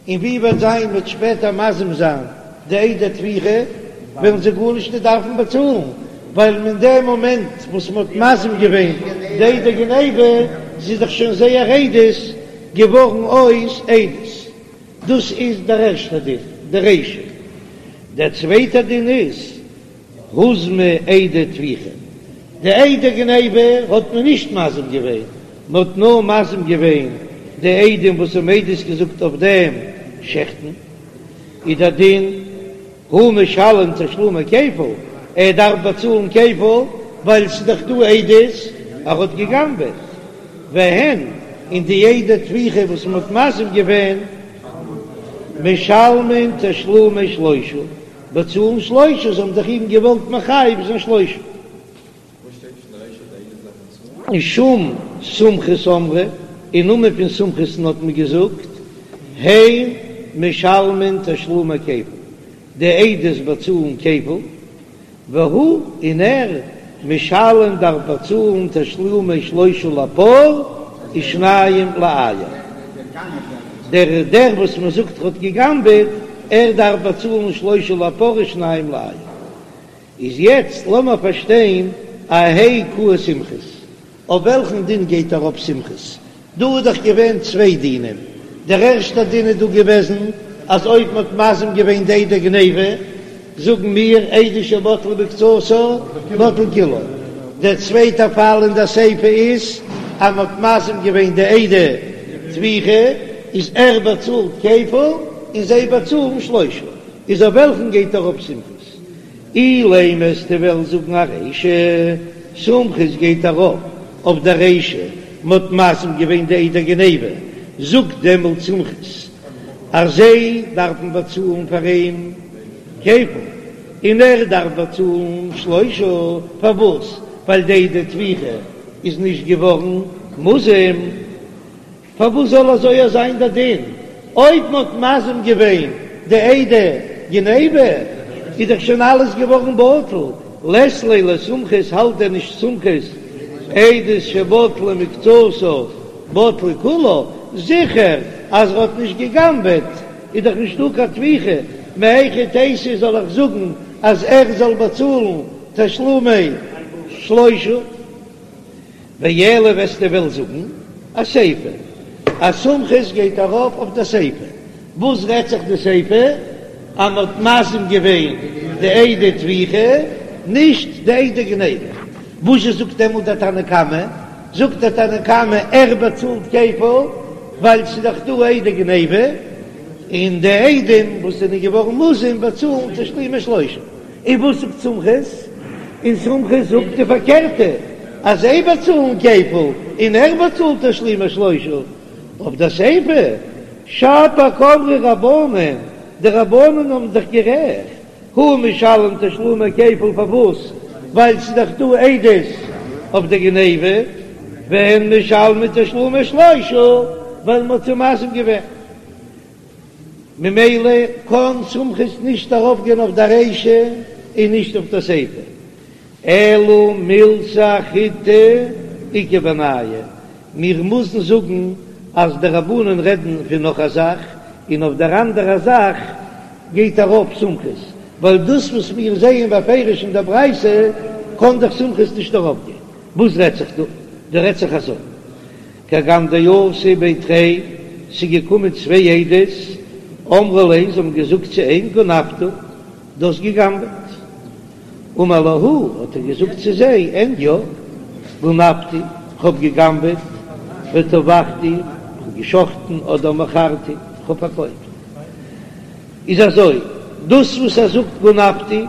און ווי וועט זיין מ'וועט שפעטער מזים זיין די עדי טביחה, וועלן זיי גארנישט נישט דארפן באצאלן, ווייל אין דעם מאמענט וואס מען האט מזים געווען די עדי גניבה, איז דאך שוין זייער עדות געווארן אויס עדות. דאס איז דער ערשטער דין, די רישא. דער צווייטער דין איז, הוזמו עדי טביחה, די עדי גניבה האט מען נישט מזים געווען, מען האט נאר מזים געווען די עדים וואס האבן עדות געזאגט אויף דעם שעכטן, איז דער דין הוא משלם תשלומי כפל, ער דארף באצאלן כפל ווייל ס'איז דאך דא עדות ער האט גע'גנב'עט, והן, און די עדי טביחה וואס מען האט מזים געווען משלמין תשלומי שלושה. באצאלן שלושה, זיי האבן דאך אים געוואלט מחייב זיין שלושה. משום סומכוס אמרו, אין נאמען פון סומכוס'ן האט מען געזאגט, הן משלמין תשלומי כפל, די עדות באצאלן כפל, והוא, און ער, משלם דארף באצאלן תשלומי שלושה לפר ושניים לאיל. דער דער וואס מען זאגט האט גע'גנב'עט, ער דארף באצאלן שלושה לפר ושניים לאיל. איז יעצט לאמער פארשטיין אהייא קאי סומכוס, אויף וועלכן דין גייט ארויף סומכוס? דא איז דאך געווען צוויי דינים, דער ערשטער דין איז דא געוועזן אז אויב מען האט מזים געווען די עדי גניבה, זאגן מיר עדות שבטלה מקצתה בטלה כולה, דער צווייטער פאל אין דער סיפא איז אז מען האט מזים געווען די עדי טביחה, איז ער באצאלט כפל און זיי באצאלן שלושה, איז אויף וועלכן גייט ארויף סומכוס? אילימא וועסטו וועלן זאגן ארישא, סומכוס גייט ארויף אויף דער רישא, מ'האט מזים געווען די עדי גניבה, זאגט דעמאלט סומכוס אז זיי דארפן באצאלן פאר אים כפל, און ער דארף באצאלן שלושה, פארוואס? ווייל די עדי טביחה איז נישט געווארן מוזם. פארוואס זאל אזוי זיין דער דין? אויב מ'האט מזים געווען די עדי גניבה איז דאך שוין אלעס געווארן בטל, לית ליה לסומכוס האלט דען נישט סומכוס עדות שבטלה מקצתה בטלה כולה, זיכער אז ער האט נישט גע'גנב'עט איז דאך נישטא קיין טביחה, מהיכי תיתי זאל איך זאגן אז ער זאל באצאלן תשלומי שלושה? ואלא וועסטו וועלן זאגן אסיפא אז סומכוס גייט ארויף אויף די סיפא, וואס רעדט זיך די סיפא? אז מען האט מזים געווען די עדי טביחה נישט די עדי גניבה, וואזשע זאגט דעמאלט דער תנא קמא? זאגט דער תנא קמא ער באצאלט כפל ווייל ס'איז דאך דא עדי גניבה, און די עדים וואס זענען געווארן מוזם באצאלן תשלומי שלושה. און וואס זאגט סומכוס? און סומכוס זאגט די פארקערטע, אז זיי באצאלן כפל און ער באצאלט תשלומי שלושה. אויף די סיפא, שפיר קאמרי רבנן, די רבנן האבן זיך גערעכט. הוא משלם תשלומי כפל פארוואס? ווייל ס'איז דאך דא עדות אויף די גניבה, והן משלמין תשלומי שלושה ווייל מ'האט זיי מזים געווען. ממילא קען סומכוס נישט ארויפגיין אויף די רישא און נישט אויף די סיפא. אלא מילתא אחריתא איכא בינייהו, מיר מוזן זאגן אז די רבנן רעדן פון נאך א זאך, און אויף דער אנדערע זאך גייט ארויף סומכוס, ווייל דאס וואס מיר זעען בפירוש אין דער ברייתא קען דאך סומכוס נישט ארויפגיין. וואס רעדט זיך דא? דא רעדט זיך אזוי, כגון דאתו בי תרי, ס'איז געקומען צוויי עדות, אמרו ליה, זיי האבן געזאגט צו אים, גנבת, דו האסט גע'גנב'עט. אמר להו, האט ער געזאגט צו זיי, אין יא, גנבתי, כ'האב גע'גנב'עט, וטבחתי, כ'האב גע'שחט'ן, אדער מכרתי, כ'האב פארקויפט. איז אזוי, דאס וואס ער זאגט גנבתי,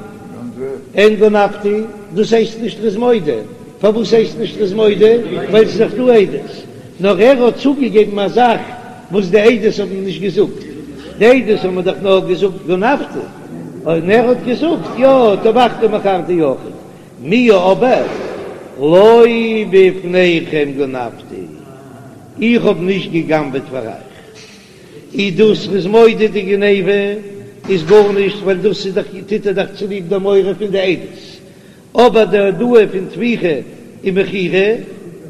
אין גנבתי, דאס הייסט נישט ר'איז מודה. פארוואס הייסט נישט ר'איז מודה? ווייל ס'איז דאך דא עדות. נאר ער האט צוגעגעבן א זאך וואס די עדות האבן נישט געזאגט. די עדות האבן דאך נאר געזאגט גנבתי, און ער האט געזאגט יא טבחתי מכרתי אויכעט. מיהו אבער לא בפניכם גנבתי, איך האב נישט גע'גנב'עט פאר אייך. איז דאס ר'איז מודה די גניבה איז גארנישט ווייל דאס איז דאך טוט ער דאך צוליב די מורא פון די עדות. אבער די הודאה פון טביחה און מכירה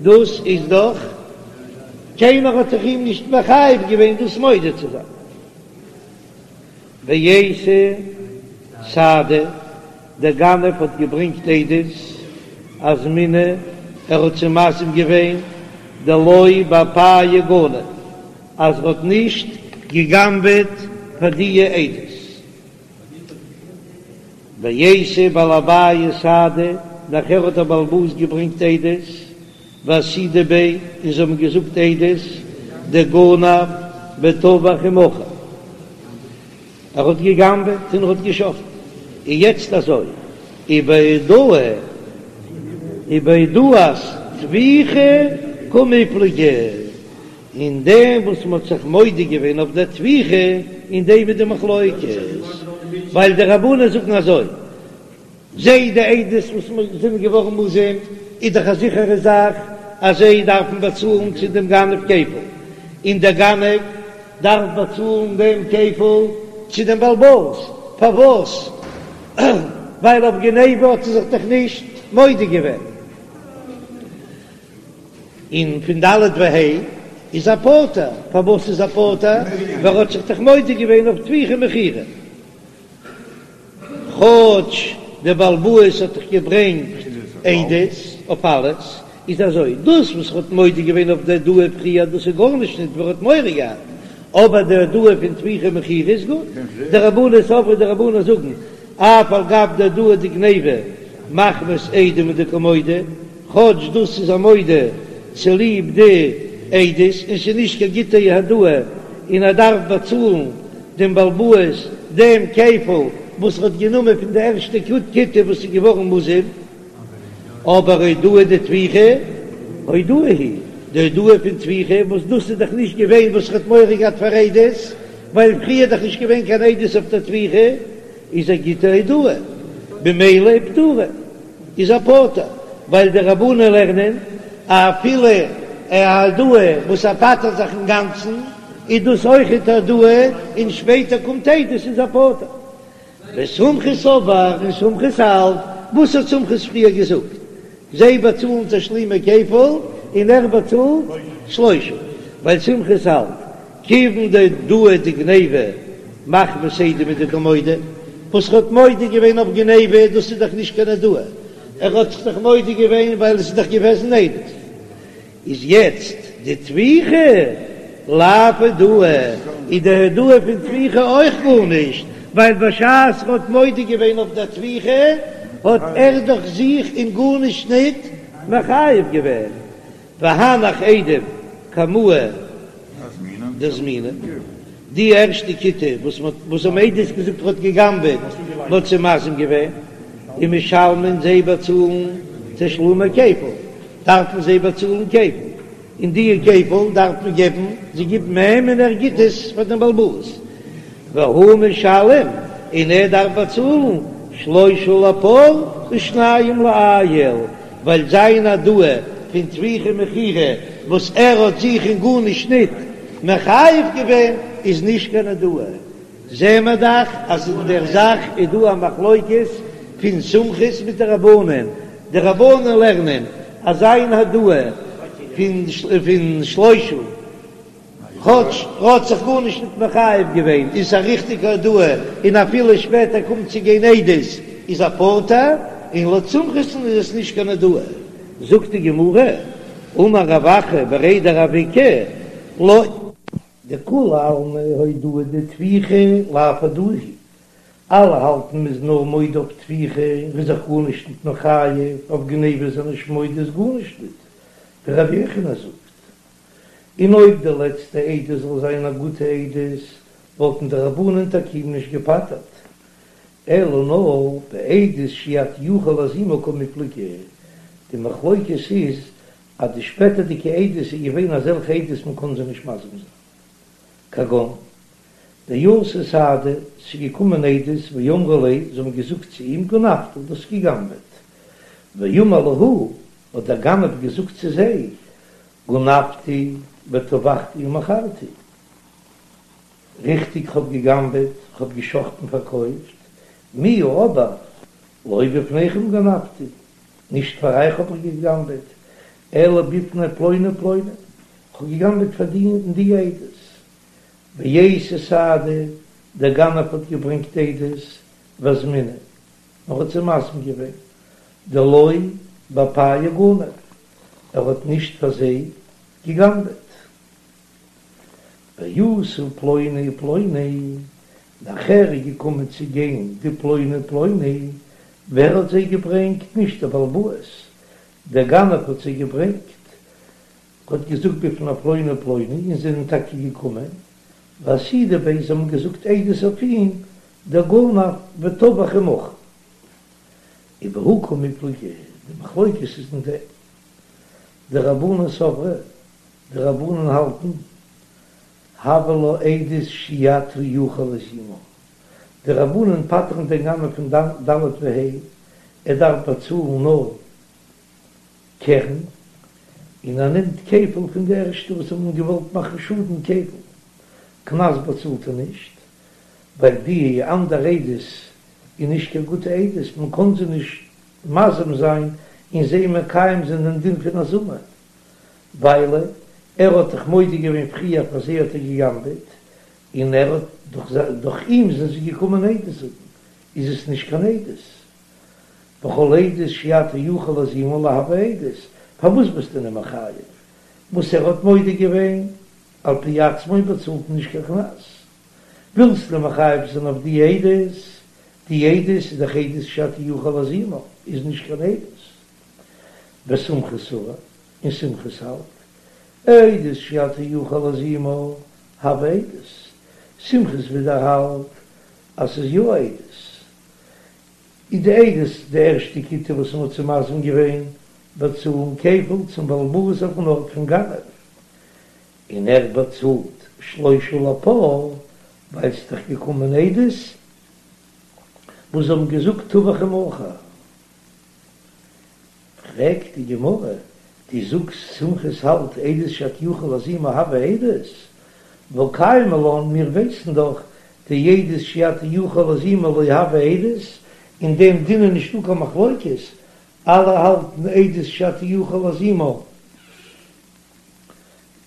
דאס איז דאך קיינער האט דאך אים נישט מחייב געווען דאס מודה צו זיין. ואייתי סהדי, דער גנב האט געברענגט עדות אזמינהו ער האט זיי מזים געווען דלא באפייהו גנב אז ער האט נישט געגנבעט פאר דיע עדות. ואייתי בעל הבית סהדי, נאכער האט דער בעל הבית געברענגט עדות, ואסהידו ביה, און זיי האבן געזאגט עדות, דגנב וטבח ומכר, ער האט געגנבעט און ער האט געשחטן, און יעצט אזוי, ובהודאה ובהודאת טביחה קמיפלגי. אין דעם וואס מ'האט זיך מודה געווען אויף דער טביחה, אין דעם איז די מחלוקת, ווייל די רבנן זאגן אזוי, זיי די עדות וואס זענען געווארן מוזם, איז דאך א זיכערע זאך אז זיי דארפן באצאלן צו דעם גנב כפל, און דער גנב דארף באצאלן דעם כפל צו דעם בעל הבית, פארוואס? ווייל אויף גניבה האט ער זיך דאך נישט מודה געווען. און פון ד' וה' איז ער פטור, פארוואס איז ער פטור? ווייל ער האט זיך דאך מודה געווען אויף טביחה ומכירה, כאטש דער בעל הבית האט דאך געברענגט עדות אויף אלעס, איז אזוי, דאס וואס ער האט מודה געווען אויף די הודאה פריער דאס איז גארנישט נישט ווייל ער האט מורא געהאט, אבער די הודאה פון טביחה ומכירה איז גוט, דרבנן סברי די רבנן זאגן אף על גב דהודאה דגניבה מחמת עדים הוא דקא מודה, כאטש דאס איז ער מודה צוליב די עדות און ס'איז נישט קיין גוטע הודאה און ער דארף באצאלן דעם בעל הבית דעם כפל וואס ער האט גענומען פון די ערשטע כיתה וואס איז געווארן מוזם, אבער הודאה דטביחה הודאה היא, די הודאה פון טביחה וואס דאס איז דאך נישט געווען וואס ער האט מורא געהאט פאר עדות, ווייל פריער איז דאך נישט געווען קיין עדות אויף דער טביחה, איז א גוטע הודאה, במילא פטורה איז ער פטור, ווייל די רבנן לערנען אפילו א הודאה וואס ער פטר'ט זיך אינגאנצן איז דאס אויכעט א הודאה, און שפעטער קומט עדות איז ער פטור. וסומכוס סבר און סומכוס האלט, וואס האט סומכוס פריער געזאגט? זיי באצאלן תשלומי כפל און ער באצאלט שלושה, ווייל סומכוס האלט כיוון דהודאה דגניבה מחמת עדים הוא דקא מודה, וואס ער האט מודה געווען אויף גניבה דאס איז דאך נישט קיין הודאה, ער האט זיך דאך מודה געווען ווייל עס איז דאך געוועזן עדות. איז יעצט די טביחה לאו הודאה, איז די הודאה פון טביחה אויך גארנישט, ווייל בשעת ער האט מודה געווען אויף דער טביחה האט ער דאך זיך אין גארנישט ניט מחייב געווען, והנך עדים קמאי דאזמינהו, די ערשטע כיתה וואס מ'האט וואס האבן עדות געזאגט ער האט גע'גנב'עט, מ'האט זיי מזים געווען, ומשלמין זיי באצאלן תשלומי כפל, דארפן זיי באצאלן כפל, און די כפל דארף מען געבן, זיי גיבן אים און ער גיט עס פאר דעם בעל הבית, והוא משלם. און ער דארף באצאלן שלושה לפר ושניים לאיל, ווייל זיין הודאה פון טביחה ומכירה וואס ער האט זיך אין גארנישט ניט מחייב געווען איז נישט קיין הודאה. זעהן מיר דאך אז אין דער זאך איז דא א מחלוקת פון סומכוס מיט די רבנן, די רבנן לערנען אז זיין הודאה פון שלושה כאטש ער האט זיך גארנישט ניט מחייב געווען איז א ריכטיגע הודאה און אפילו שפעטער קומט צו גיין עדות איז ער פטור, און לויט סומכוס'ן איז עס נישט קיין הודאה. זאגט די גמרא, אמר רב אחא בריה דרב איקא, לא. דכולי עלמא הודאה דטביחה לאו הודאה היא, אלע האלטן מ'איז נאר מודה אויף טביחה און ר'איז זיך גארנישט ניט מחייב, אויף גניבה איז ער נישט מודה איז גארנישט ניט, ווי רבי יוחנן זאגט. און אויב די לעצטע עדות זאל זיין א גוטע עדות וואלטן די רבנן טאקע אים נישט געפטר'ט, אלא נאר בעדות שאי אתה יכול להזימה קמיפלגי, די מחלוקת איז אז די שפעטערדיגע עדות איז געווען אזעלכע עדות מען קען זיי נישט מזים זיין, כגון דאתו סהדי, ס'איז געקומען עדות ואמרו ליה, זיי האבן געזאגט צו אים גנבת, דו האסט גע'גנב'עט, ואמר להו, האט דער גנב געזאגט צו זיי, גנבתי וטבחתי ומכרתי, ריכטיג כ'האב גע'גנב'עט, כ'האב גע'שחט'ן פארקויפט, מיהו אבער לא בפניכם גנבתי, נישט פאר אייך האב איך גע'גנב'עט, אלא בפני פלוני ופלוני, כ'האב גע'גנב'עט פאר די און די עדות. ואייתי סהדי, דער גנב האט געברענגט עדות, ואזמינהו, ער האט זיי מזים געווען, דלא באפייהו גנב, ער האט נישט פאר זיי גע'גנב'עט. ואתו פלוני ופלוני, נאכער איז געקומען צו גיין די פלוני ופלוני, ווער האט זיי געברענגט? נישט דער בעל הבית, דער גנב האט זיי געברענגט, האט געזאגט בפני פלוני ופלוני, און זיי זענען טאקע געקומען, ואסהידו ביה, זיי האבן געזאגט עדות אויף אים, דגנב וטבח ומכר. ובהא קמיפלגי, די מחלוקת איז אין דעם. דרבנן סברי, די רבנן האלטן, הויא לה עדות שאי אתה יכול להזימה, די רבנן פטר'ן דעם גנב פון ד' וה', ער דארף באצאלן נאר קרן, און ער נעמט כפל פון די ערשטע וואס האבן געוואלט מאכן שאדן כפל, קנס באצאלט ער נישט, ווייל די אנדערע עדות איז נישט קיין גוטע עדות, מען קען זיי נישט מזים זיין און זיי מקיים זיין דעם דין פון הזמה, ווייל ער האט דאך מודה געווען פריער פאר זיי האט ער גע'גנב'עט, און ער האט דורך דורך אים זענען זיי געקומען עדות זאגן, איז עס נישט קיין עדות. וכל עדות שאי אתה יכול להזימה לא הויא עדות, פארוואס ביסטו אים מחייב? וואס ער האט מודה געווען על פי עצמו באצאלט מען נישט קיין קנס. ווילסט אים מחייב זיין אויף די עדות, די עדות איז דאך עדות שאי אתה יכול להזימה, איז נישט קיין עדות. וסומכוס סבר, און סומכוס האלט, עדות שאי אתה יכול להזימה הויא עדות, סומכוס ווידער האלט אז ס'איז יא עדות, איז די עדות די ערשטע כיתה וואס מ'האט זיי מזים געווען באצאלן כפל צום בעל הבית אויפן ארט פון גנב, און ער באצאלט שלושה לפר, ווייל ס'איז דאך געקומען עדות וואס האבן געזאגט טבח ומכר. פרעגט די גמרא, דו זאגסט סומכוס האלט עדות שאתה יכול להזימה הויא עדות, והא קיימא לן, מיר ווייסן דאך דעדות שאי אתה יכול להזימה לא הויא עדות, אין דעם דין איז נישטא קיין מחלוקת, אלע האלטן עדות שאתה יכול להזימה לא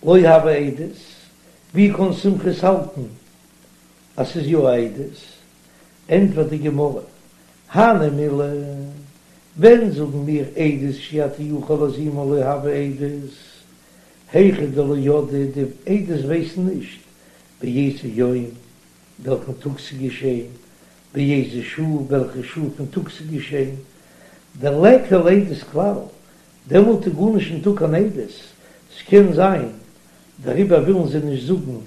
הויא עדות, ווי קען סומכוס האלטן אז ס'איז יא א עדות? ענטפערט די גמרא, הני מילי, ווען זאגן מיר עדות שאי אתה יכול להזימה לא הויא עדות, היכא דלא ידעי, די עדות ווייסן נישט באיזה יום, וועלכן טאג ס'איז געשען, באיזה שעה, וועלכע שעה פון טאג ס'איז געשען, דליכא לעדות כלל, דעמאלט איז גארנישט ניטא קיין עדות, ס'קען זיין דעריבער ווילן זיי נישט זאגן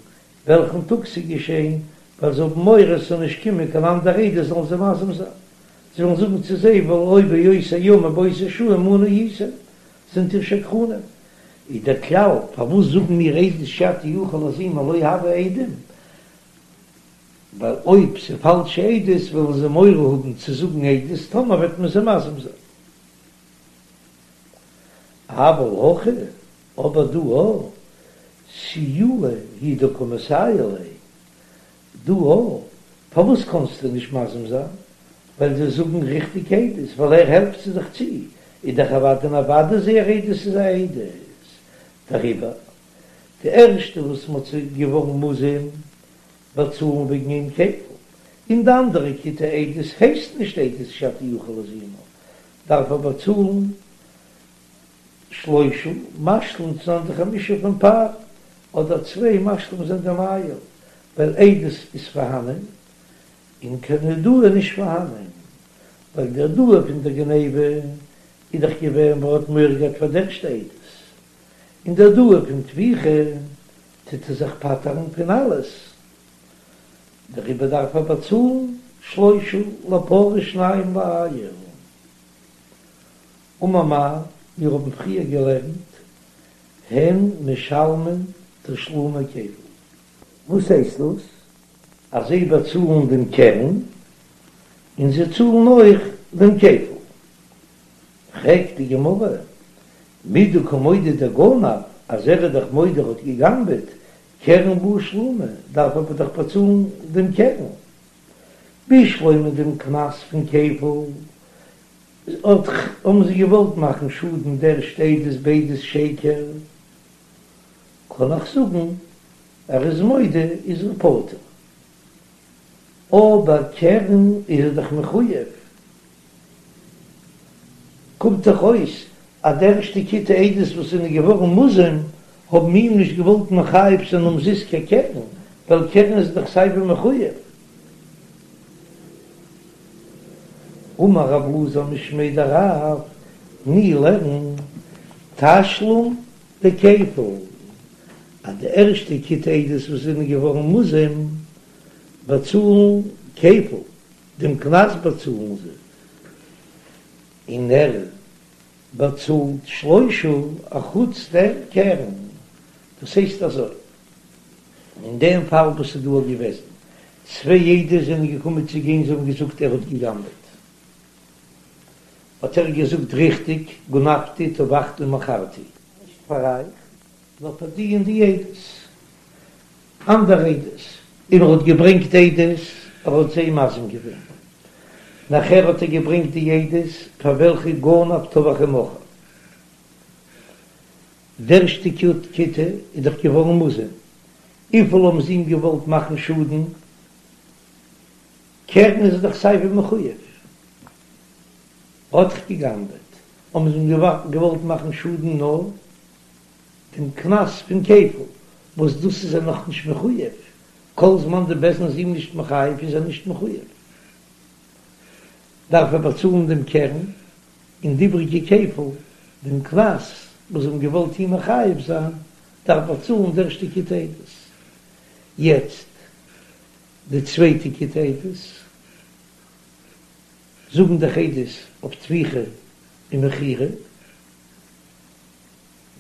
וועלכן טאג ס'איז געשען, ווייל זיי האבן מורא ס'זאל נישט קומען קיין אנדערע עדות זאלן זיי מזים זיין. זיי וועלן זאגן צו זיי והלא באותו יום ובאותה שעה עמנו הייתם, זענט איר שקרנים. איז דער כלל, פארוואס זאגן מיר עדות שאתה יכול להזימה לא הויא עדים? ווייל אויב ס'איז פאלשע עדות וועלן זיי מורא האבן צו זאגן עדות טאמער וועט מען זיי מזים זיין. אבל הכא, אבער דא א, סיועי הוא דקא מסייע ליה, דא א, פארוואס קאנסטו נישט מזים זיין? ווייל זיי זאגן ריכטיג עדות, ווייל ער העלפט זיי דאך צו, איז דאך אוודאי און אוודאי זייער עדות איז א עדות. דעריבער, די ערשטע וואס מ'האט זיי געווארן מוזם באצאלן וועגן אים כפל, און די אנדערע כיתה עדות הייסט נישט עדות שאתה יכול להזימה, דארף ער באצאלן שלושה משלים צו זיין די חמשה פון פר, אדער צוויי משלים זיין דעם איל, ווייל עדות איז פארהאנען און קיין הודאה נישט פארהאנען, ווייל די הודאה פון דער גניבה איז דאך געווען ווייל ער האט מורא געהאט פאר די ערשטע עדות, און די הודאה פון טביחה טוט ער זיך פטר'ן פון אלעס, דעריבער דארף ער באצאלן שלושה לפר ושניים לאיל. אמר מר, מיר האבן פריער געלערנט, הן משלמין תשלומי כפל. וואס הייסט דאס? אז זיי באצאלן דעם קרן, און זיי צאלן אויך דעם כפל. פרעגט די גמרא, מדקא מודה דגנב, אז ער איז דאך מודה ער האט גע'גנב'עט, קרן בעי שלומי, דארף ער דאך באצאלן דעם קרן. בשלמא דעם קנס פון כפל, האט האבן זיי געוואלט מאכן שאדן די ערשטע עדות בעדות שקר, קען איך זאגן ער איז מודה איז ער פטור, אבער קרן איז ער דאך מחויב, קומט דאך אויס אז די ערשטע כיתה עדות וואס זענען געווארן מוזם האבן אים נישט געוואלט מחייב זיין אומזיסט קיין קרן, ווייל קרן איז דאך סייווי מחויב. אמר רב אלעזר משמיה דרב, תני לערן תשלום דכפל, אז די ערשטע כיתה עדות וואס זענען געווארן מוזם באצאלן כפל, דעם קנס באצאלן זיי, און ער באצאלט שלושה אחוץ דעם קרן, דאס הייסט אזוי, אין דעם פאל וואס איז דא געוועזן, צוויי עדות זענען געקומען צו גיין זיי האבן געזאגט ער האט גע'גנב'עט, האט ער געזאגט ריכטיג גנבתי טבחתי ומכרתי. נישט פאר אייך, נאר פאר די און די עדות, אנדערע עדות, און ער האט געברענגט עדות, ער האט זיי מזים געווען, נאכער האט ער געברענגט די עדות פאר וועלכע גנב טבח ומכר. די ערשטע כיתה איז דאך געווארן מוזם, וויפיל האבן זיי אים געוואלט מאכן שאדן? קרן איז ער דאך סייווי מחויב, האט דאך גע'גנב'עט, האבן זיי אים געוואלט מאכן שאדן נאר דעם קנס פון כפל, וואס דאס איז ער נאך נישט מחויב, כל זמן די בית דין איז אים נישט מחייב איז ער נישט מחויב, דארף ער באצאלן דעם קרן און די איבריגע כפל, דעם קנס וואס זיי האבן געוואלט אים מחייב זיין, דארף באצאלן די ערשטע כיתה עדות. יעצט די צווייטע כיתה עדות זאגן דאך עדות אויף טביחה און מכירה,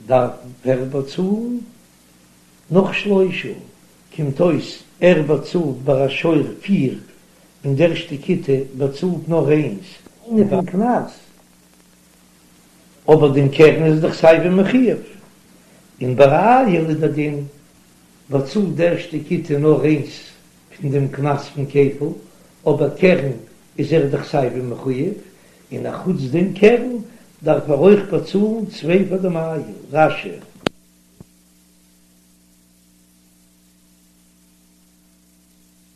דארף ער באצאלן נאך שלושה, קומט אויס ער באצאלט ביי א שור פיר און די ערשטע כיתה באצאלט נאר איינס. איינע פון קנס, אבער דעם קרן איז דאך סייווי מחויב, און ביי א איל איז דער דין באצאלט די ערשטע כיתה נאר איינס פון דעם קנס פון כפל, אבער קרן איז ער דאך סייווי מחויב, און אחוץ דעם קרן דארף ער אויך באצאלן צוויי פאר דעם איל. רש"י.